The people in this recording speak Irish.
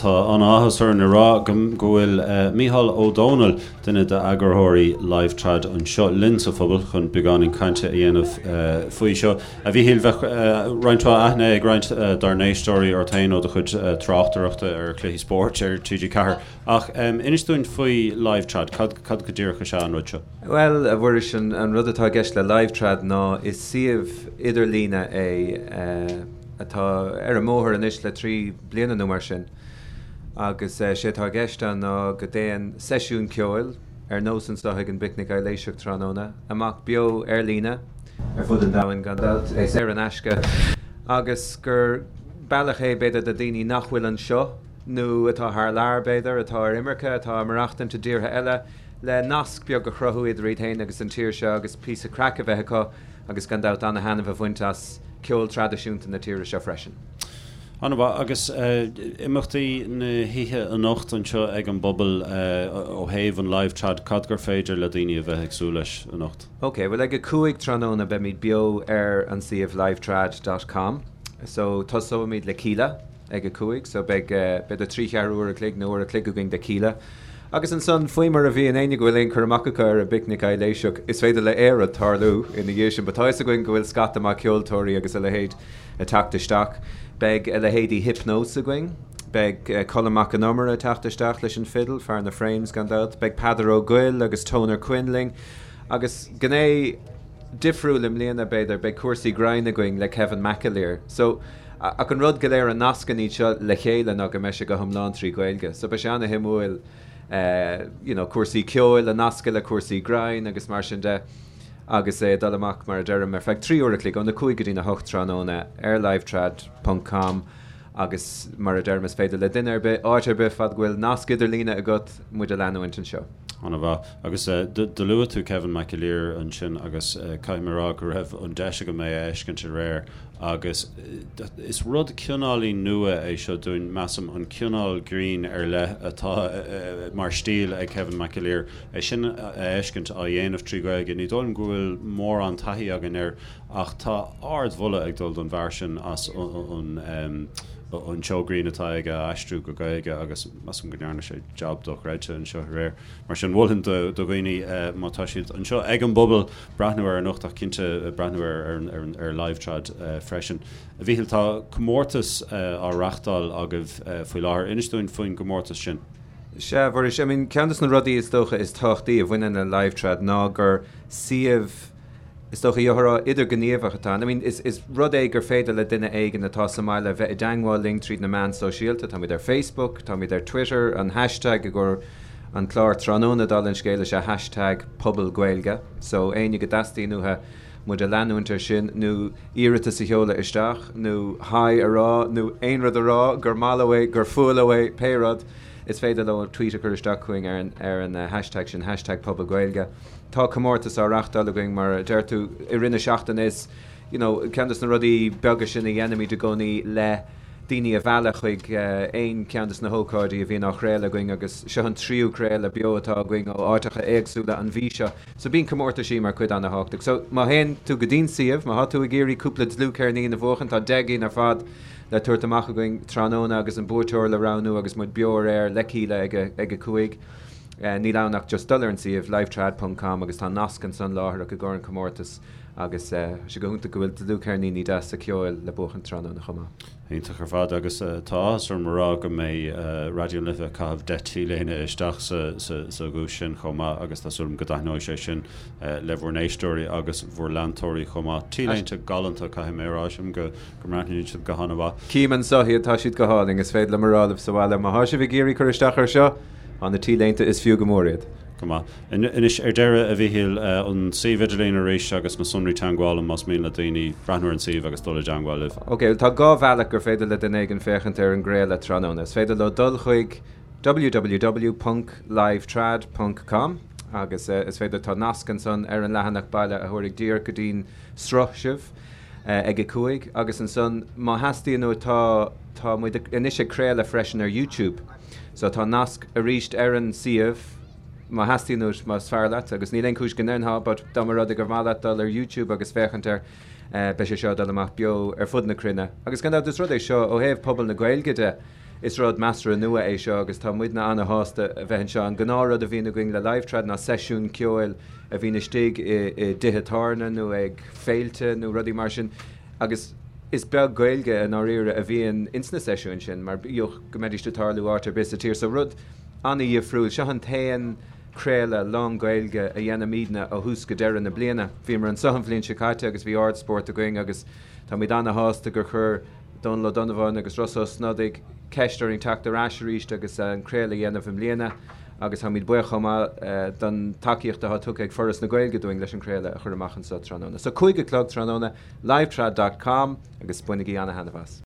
tá an-áthas orainn a rá go bhfuil Mícheál Ó Domhnaill, duine d'eagarthóirí LiveTrad anseo linn sa phuball chun beagáinín cainte a dhéanamh faoi seo. A Mhíchíl, bheadh roinnt mhaith aithne ag roinnt dár n-éisteoirí ort féin ó do chuid tráchtaireachta ar chluichí spóirt ar TG4. Ach inis dúinn faoi LiveTrad, cad go díreach is ea an rud seo? Bhuel, a Mhuiris, an rud atá i gceist le LiveTrad ná is suíomh idirlíne é, atá ar an mbóthar anois le 3 bliana nó mar sin agus sé atá i gceist ann ná go dtéann seisiún ceoil, ar nós anseo ag an bPicnic Aibhléiseach tráthnóna, amach beo ar líne ar fud an domhain gan dabht, é saor in aisce agus gur bealach é b'fhéidir do daoine nach bhfuil anseo nó atá thar lear b'fhéidir, atá ar imirce, atá ag maireachtaint i dtíortha eile le nasc beag a chruthú idir iad féin agus an tír seo agus píosa craic a bheith acu. agus gan dabht ana-thaitneamh a bhaint as ceol traidisiúnta na tíre seo freisin. An-mhaith. Agus imeachtaí na hoíche anocht anseo ag an bPuball ó thaobh an Live Trad, cad gur féidir le daoine a bheith ag súil leis anocht? Ok, bhuel ag 5 tráthnóna beimid beo ar an suíomh livetrad dot com. So tosóimid le Kíla. ag a 5, so beidh b'fhéidir 3 cheathrú uair a chloig nó uair a chloig againn de Kíla. Agus ansan, faoi mar a bhíonn, éinne go bhfuil aon cur amach acu ar an bPicnic Aibhléiseach, is féidir le aon rud tarlú ina dhiaidh sin, but tá fhios againn go bhfuil scata maith ceoltóirí agus a leithéid ag teacht isteach. Beidh a leithéidí Hypnose againn, beidh Colm Mac Con Iomaire ag teacht isteach leis an fidil, fear na Frames gan dabht, beidh Peadar Ó Goill agus Toner Quinn linn, agus gné difriúil i mbliana, b'fhéidir, beidh cúrsaí grinn againn le Kevin McAleer. So. Ach an rud go léir a nascann iad seo le chéile ná go mbeidh sé go hiomlán trí Ghaeilge. So beidh sé ana-shuimiúil you know cúrsaí ceoil a nascadh le cúrsaí grinn agus mar sin de agus é ag dul amach mar a deirim ar feadh 3 uair a chloig óna 5 go dtína 8 tráthnóna ar livetrad ponc com agus mar a deirim is féidir le duine ar bith, áit ar bith fad go bhfuil nasc idirlíne agat muid a leanúint anseo. An-mhaith. Agus do luaigh tú Kevin McAleer ansin agus caithfidh mé a rá go raibh an deis agam é a fheiscint aréir Agus is rud cineáilín nua é seo dúinn, measaim, an cineál grinn ar leith atá mar stíl ag Kevin McAleer, é sin a fheiscint á dhéanamh trí Ghaeilge. Ní dóigh liom go bhfuil mórán taithí againn air ach tá ardmholadh ag dul don bhfear sin as an an seó grinn atá aige a aistriú go Gaeilge agus measaim go ndearna sé jab dochreidte anseo aréir. Mar sin, mholfainn do dhaoine má tá siad anseo ag an bPuball, breathnú air anocht ach cinnte breathnú ar LiveTrad freisin. A Mhíchíl, tá comórtas á reachtáil agaibh faoi láthair. Inis dúinn faoin gcomórtas sin. Sea, a Mhuiris, I mean, ceann de na rudaí is dócha is tábhachtaí a bhaineann le LiveTrad ná gur suíomh, is dócha, gheofá a rá, idirghníomhach atá ann. I mean, is, is rud é gur féidir le duine éigin atá sa mbaile bheith i dteangmháil linn tríd na meáin sóisialta. Táimid ar Facebook, táimid ar Twitter, an hashtag i gcomhair an clár tráthnóna dála an scéil is ea hashtag Puball Gaeilge so éinne go dteastaíonn uathu muid a leanúint ar sin nó iarratas a sheoladh isteach nó hi a rá nó aon rud a rá gur maith leo é, gur fuath leo é, pé rud, is féidir leo tweet a chur isteach chugainn ar an ar an hashtag sin hashtag Puball Gaeilge. Tá comórtas á reachtáil againn mar a deir tú i rith na seachtaine is you know ceann de na rudaí beaga sin a dhéanaimid i gcónaí le daoine a mhealladh chuig aon cheann de na hócáidí a bhíonn á chraoladh againn agus seo an tríú craoladh beo atá againn ó áiteacha éagsúla an mhí seo. So bíonn comórtaisí mar chuid ana-thábhachtach. So má théann tú go dtí'n suíomh, má thá tú ag iarraidh cúpla dlúthcheirnín a bhuachan, tá 10 gcinn ar fad le tabhairt amach againn tráthnóna agus an buaiteoir le roghnú agus muid beo ar aer le Kíla ag a ag a 5. Níl ann ach just dul ar an suíomh, livetrad ponc com agus tá nasc ansan láithreach i gcomhair an comórtas agus tá sé go hiontach go bhfuil dlúthcheirníní deasa ceoil le buachan tráthnóna chomh maith. Iontach ar fad agus tá áthas orm a rá go mbeidh Raidió na Life ag caitheamh 10 T-léine isteach sa dhuais sin chomh maith agus tá súil agam go dtaitneoidh sé sin le bhur n-éisteoirí agus bhur leantóirí chomh maith. T-léinte galánta, caithfidh mé a rá, sílim go mbreathnaíonn siad go han-mhaith. Cím anseo iad, tá siad go hálainn, is féidir liom a rá libh sa bhaile, má thá sibh ag iarraidh cur isteach air seo, tá na T-léinte, is fiú go mór iad. Go maith. Anois, ar deireadh, a Mhíchíl, an suíomh idirlín arís agus na sonraí teagmhála más mian le daoine breathnú ar an suíomh agus dul i dteagmháil libh. Ok, bhuel tá dhá bhealach gur féidir le duine éigin féachaint ar an gcraoladh tráthnóna. Is féidir leo dul chuig www ponc livetrad ponc com agus is féidir, tá nasc ansan ar an leathanach baile a thabharfaidh díreach go dtí'n sruth sibh ag a 5 agus ansan má theastaíonn uait tá, tá muid anois ag craoladh freisin ar YouTube so tá nasc arís ar an suíomh má theastaíonn uait, más fearr leat, agus níl aon chúis go ndéanfá, but dá mba rud é gur mhaith leat dul ar YouTube agus féachaint air, beidh sé seo ag dul amach beo ar fud na cruinne. Agus gan dabht, is rud é seo, ó thaobh pobal na Gaeilge de, is rud measartha nua é seo agus tá muidne ana-shásta a bheith anseo. An gnáthrud a bhíonn againn le Live Trad ná seisiún ceoil a bhíonn istigh i dtithe tábhairne nó ag féilte nó rudaí mar sin agus is beag Gaeilge i ndáiríre a bhíonn ins na seisiúin sin mar bíodh go mbeidís ag tarlú áit ar bith sa tír. So rud ana-dhifriúil. Seo an t-aon craoladh lán-Ghaeilge a dhéanaimidne ó thús go deireadh na bliana. Bhíomar anseo an bhliain seo caite agus bhí ardspórt againn agus táimid ana-shásta gur chuir Dónal Ó Donnabháin agus Rossa Ó Snodaigh ceist orainn teacht ar ais arís agus an craoladh a dhéanamh i mbliana agus táimid buíoch chomh maith don tacaíocht atá tugtha ag Foras na Gaeilge dúinn leis an craoladh a chur amach anseo tráthnóna. So 5 a chlog tráthnóna, livetrad dot com agus bainigí ana-thaitneamh as.